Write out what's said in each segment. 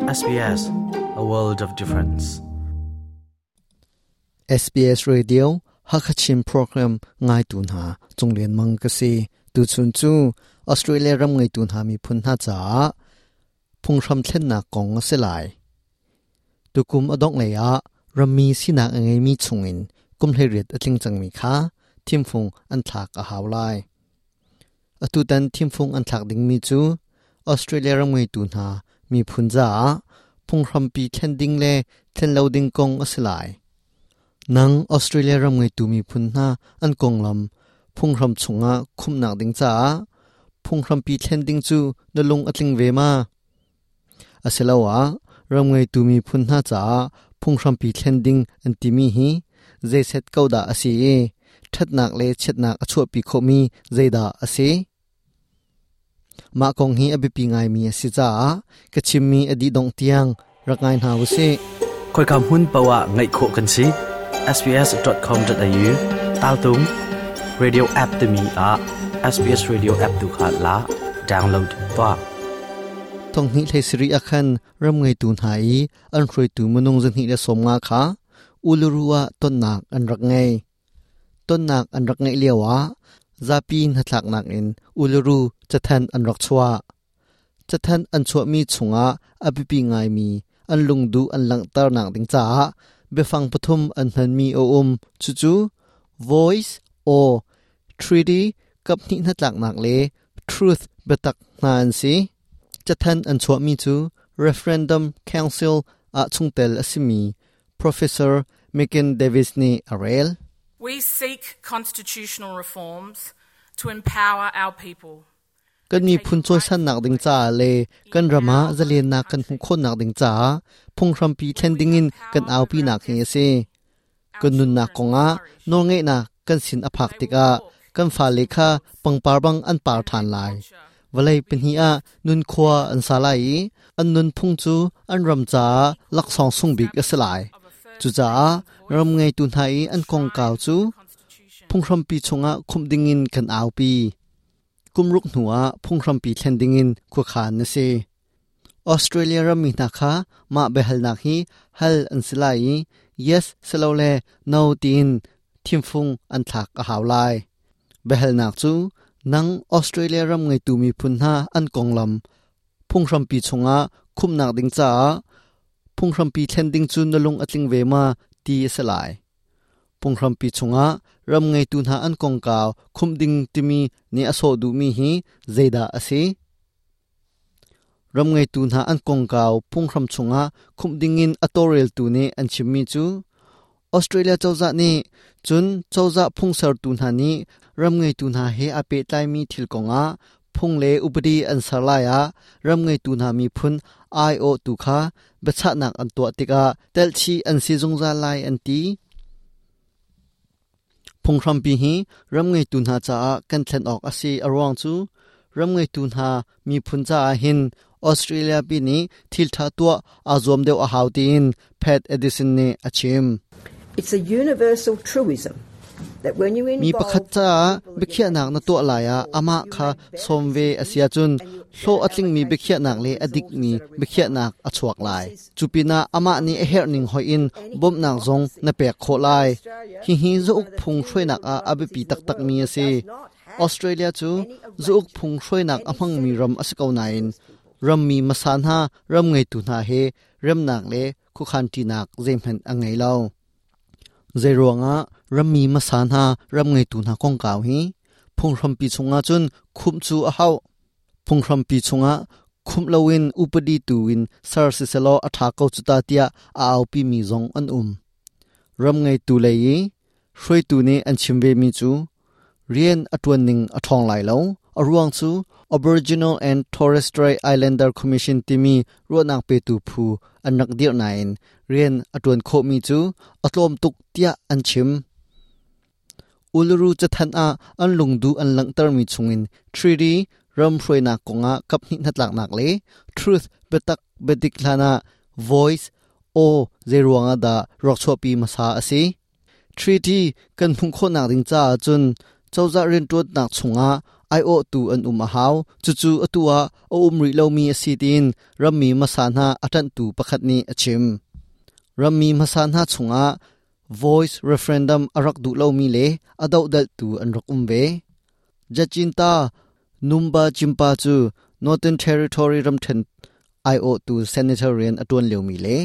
SBS, a world of difference. SBS Radio Hakachin program ngaitu hna Cunglian Mang ka si. Tuchun cu Australia ram ngeitu hna miphun hna caah phunghram thlennak kong a si lai. Tukum a dongh lei ah rammi sinak a ngeimi chungin kum 18 a tling cangmi kha thimfung an thlak a hau lai. Atutan thimfung an thlak dingmi cu Australia ram ngeitu hna miphun caah phunghrampi thlen ding le thlen lo ding kong a si lai. Nang Australia ram ngeitu miphun hna an konglam phunghram chungah khumhnak ding caah phunghrampi thlen ding cu na lung a tling ve ma? Asiloah ram ngeitu miphun hna caah phunghrampi thlen ding an timi hi zeiset ko dah a si i ṭhatnak le chiatnak a chuahpi khawhmi zeidah a si? Mah kong hi a biapi ngaimi a si caah ka chimmi a dih dongh tiang rak ngai hna u sih. Khoika hmun paoh ah ngaih khawh kan si. sbs.com.au taltung radio app timi ah SBS Radio app tu kha la download tuah. Thonghnih hlei sarih ah khan ram ngeitu hna i an hruaitu minung 250 kha Uluru ah tonnak an rak ngei. Tonnak an rak ngeih lioah zapi hnatlaknak in Uluru cathanh an rak chuah. Cathanh an chuahmi chungah a biapi ngaimi an lungduh an langhternak ding caah biafang pathum an hmanmi a um. Cucu voice, aw, treaty, kaphnih hnatlaknak le truth biatak hna an si. Cathanh an chuahmi cu Referendum Council ah chungtel a simi Professor Megan Davis nih a rel. We seek constitutional reforms to empower our people. Kan miphun cawisannak ding caah le kan ram ah zalennak kan hmuh khawhnak ding caah phunghrampi thlen dingin kan aupinak hi a si. Kan nunnak kongah nawlngeihnak kan sin a phak tikah kan fale kha pangpar bang an par ṭhan lai. Vawlei pahnih ah nunkhua an sa lai i an nunphung cu an ram caah laksawng sung bik a si lai. Cucaah ram ngeitu hna i an kongkau cu phunghrampi chungah khumh dingin kan aupi. Kum ruk hnuah phunghrampi thlen dingin khuakhan a si. Australia rammi hna kha mah biahalnak hi hal an si lai i yes silole no tiin thimfung an thlak a hau lai. Biahalnak cu nang Australia ram ngeitu miphun hna an konglam phunghrampi chungah khumhnak ding caah phunghrampi thlen ding cu na lung a tling ve ma ti a si lai. Phunghrampi chungah ram ngeitu hna an kongkau khumh ding timi nih a sawh duhmi hi zeidah a si? Ram ngeitu hna an kongkau phunghram chungah khumh dingin a tawlreltu nih an chimmi cu Australia cozah nih cun cozah phungsertu hna nih ram ngeitu hna he aa pehtlaimi thil kongah phung le upadi an ser lai ah ram ngeitu hna miphun aiawhtu kha biachahnak an tuah tikah telhchih an si zungzal lai an ti. Phunghrampi hi ram ngeitu hna caah kan thlen awk a si a ruang cu ram ngeitu hna miphun caah hin Australia pi nih thil ṭha tuah aa zuam deuh a hau tiin Pat Addison nih a chim. It's a universal truism Mi pakhat caah biakhiahnak na tuah lai ah amah kha sawm ve a si ahcun hlawh a tlingmi biakhiahnak le a dikmi biakhiahnak a chuak lai. Cu pinah amah nih a herhning hoih in bawmhnak zong na pek khawh lai. Hihi zauk phung hruainak ah a biapi taktakmi a si. Australia cu zauk phung hruainak a hmangmi ram a si ko nain rammi hmasa hna ram ngeitu hna he remnak le khuakhanṭinak zeihmanh a ngei lo. Zeiruangah rammi hmasa hna ram ngeitu hna kongkau hi phunghrampi chungah cun khumh cu a hauh. Phunghrampi chungah khumh loin upadi tu in ser siselaw a ṭha ko cu ta tiah a aupimi zong an um. Ram ngeitu lei i hruaitu nih an chim vemi cu rian a ṭuan ning a ṭhawng lai lo. A ruang cu Aboriginal and Torres Strait Islander Commission timi ruahnak petu phu an rak dirh nain rian a ṭuan khawhmi cu a tlawm tuk tiah an chim. Uluru cathanh ah an lungduh an langhtermi chungin Treaty ram hruainak kongah kaphnih hnatlaknak le Truth biatak biadik hlanah Voice aw zeiruangah dah rak chuahpi hmasa a si? Treaty kan hmuh khawhnak ding caah cun cozah rianṭuannak chungah Aiawhtu an um a hau. Cucu atu ah a um rih lomi a si tiin rammi hmasa hna a ṭanhtu pakhat nih a chim. Rammi hmasa hna chungah Voice referendum a rak duh lomi le a dohdalhtu an rak um ve. Jacinta Numba Jimpa cu Northern Territory ramṭhen aiawhtu senator rian a ṭuan liomi le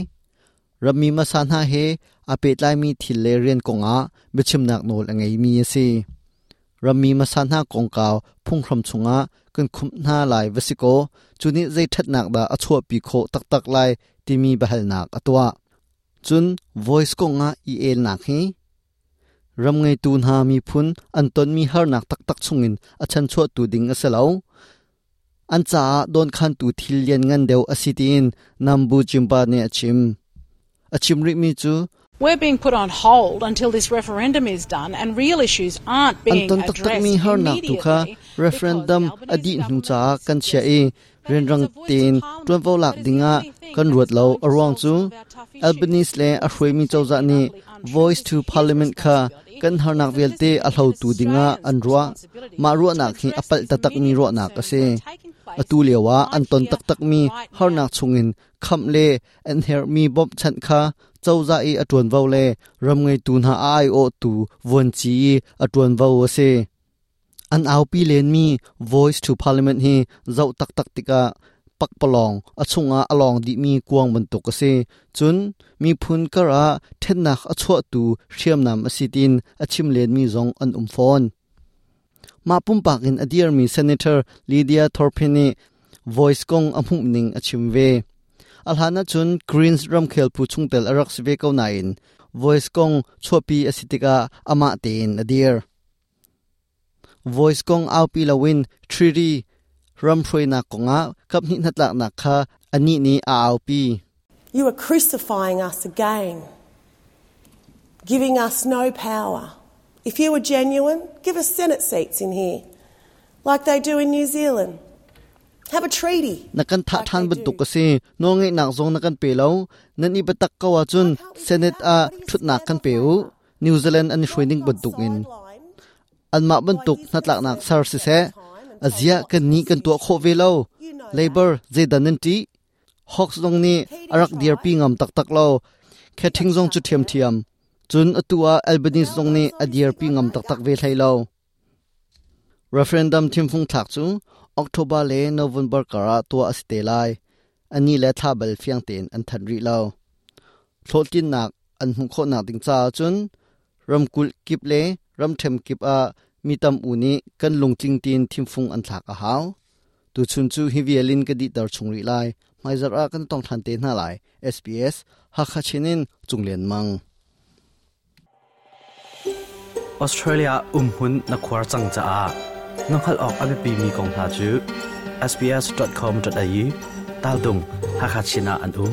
rammi hmasa hna he aa pehtlaimi thil le rian kongah biachimnak nawl a ngeimi a si. Rammi hmasa hna kongkau phunghram chungah kan khumh hna lai va si kaw cu nih zei ṭhatnak dah a chuahpi khawh taktak lai timi biahalnak a tuah. Cun voice kongah i elnak hi ram ngeitu hna miphun an tonmi harnak taktak chungin a chanchuahtu ding a si lo. An caah dawnkhantu thil lianngan deuh a si tiin Nambu Jimba nih a chim. A chim rihmi cu We're being put on hold until this referendum is done and real issues aren't An being ton taktakmi addressed harnak tu kha immediately because referendum the a Albanese dih hnu government caah has kan chiah suggested i that it is rianrang a voice to tein parliament ṭuanvo lak that is the dingah only thing kan that ruat is lo. going A to ruang solve cu some of our tough issues. Albanese le a It is hruaimi cozah completely and nih utterly untrue. Voice It is to his Parliament kha responsibility kan harnak as the vialte President a of hlotu dingah Australians' an ruah. responsibility Mah to ruahnak hi a address palh these taktakmi immediate ruahnak a concerns si. that are taking place Atu lioah an right ton here, taktakmi right now. harnak chungin khamh le an herhmi bawmhchanh kha cozah i a ṭuanvo le ram ngeitu hna a aiawhtu vuanci i a ṭuanvo a si. An aupi lenmi Voice to Parliament hi zoh taktak tikah pakpalawng a chungah a lawng dihmi kuang bantuk a si. Cun miphun kar ah ṭhennak a chuahtu hriamnam a si tiin a chim lenmi zong an um fawn. Mah pumpak in a dirmi Senator Lydia Thorpe nih Voice kong a hmuhning a chim ve. A hlan ahcun Greens ramkhel phu chungtel a rak si ve ko nain Voice kong chuahpi a si tikah amah tein a dir. Voice kong aupi loin Treaty ram hruainak kongah kaphnih hnatlaknak kha anih nih a aupi. You are crucifying us again, giving us no power. If you were genuine, give us Senate seats in here, like they do in New Zealand. Have a treaty. Na kan thah like ṭhan they bantuk do. a si. Nawlngeihnak zong na kan pe lo. Nan i biatak ko ahcun Why can't we do Senate that? ah What do you ṭhutnak stand kan on pe u. favour? New Zealand an i hruai Not ning got bantukin. sidelined Anmah by bantuk his hnatlaknak ser conservatives at siseh, the time and a told zia not kan to nih kan tuah prosecute khawh ve him. lo. You know that. Labor zeidan nan ṭih? Hawks zong nih a Keating rak dirpi tried. ngam taktak lo. He got Khathing zong shut cu down. ṭhiamṭhiam. Cun atu ah Albanese Now zong nih they've a obviously dirpi got ngam no taktak ve guts. hlei lo. Referendum thimfung thlak cu October le November kar ah tuah a si te lai. Ani le thla bal fiang tein an thanh rih lo. Hlawhtlinnak an hmuh khawhnak ding caah cun ramkulh kip le ramṭhen kip ah mi tam u nih kan lungtling tiin thimfung an thlak a hau. Tuchun cu hi vial in ka dihter chung rih lai. Hmaizarh ah kan tong ṭhan te hna lai. SBS Hakha Chin in Cunglian Mang. Australia umhmun na khuar cang caah na hngalh awk a biapimi kong hna cu sbs.com.au tal tung Hakha Chin ah an um.